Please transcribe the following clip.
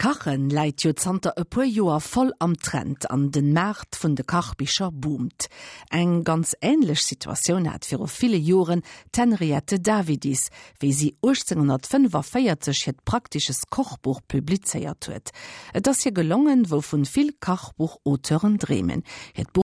Kachen läit jo zanter e puer Joer voll am Trend an den Maart vun de Kachbicher boomt. Eng ganz änlech Situatioun hat viru ville Joren d'Henriette Davidis, wéi si 1845 hiert Praktisches Kochbuch publizéiert huet. Et ass hir gelongen, wouvun vill Kachbuch-Auteuren dreemen, hiert Buch.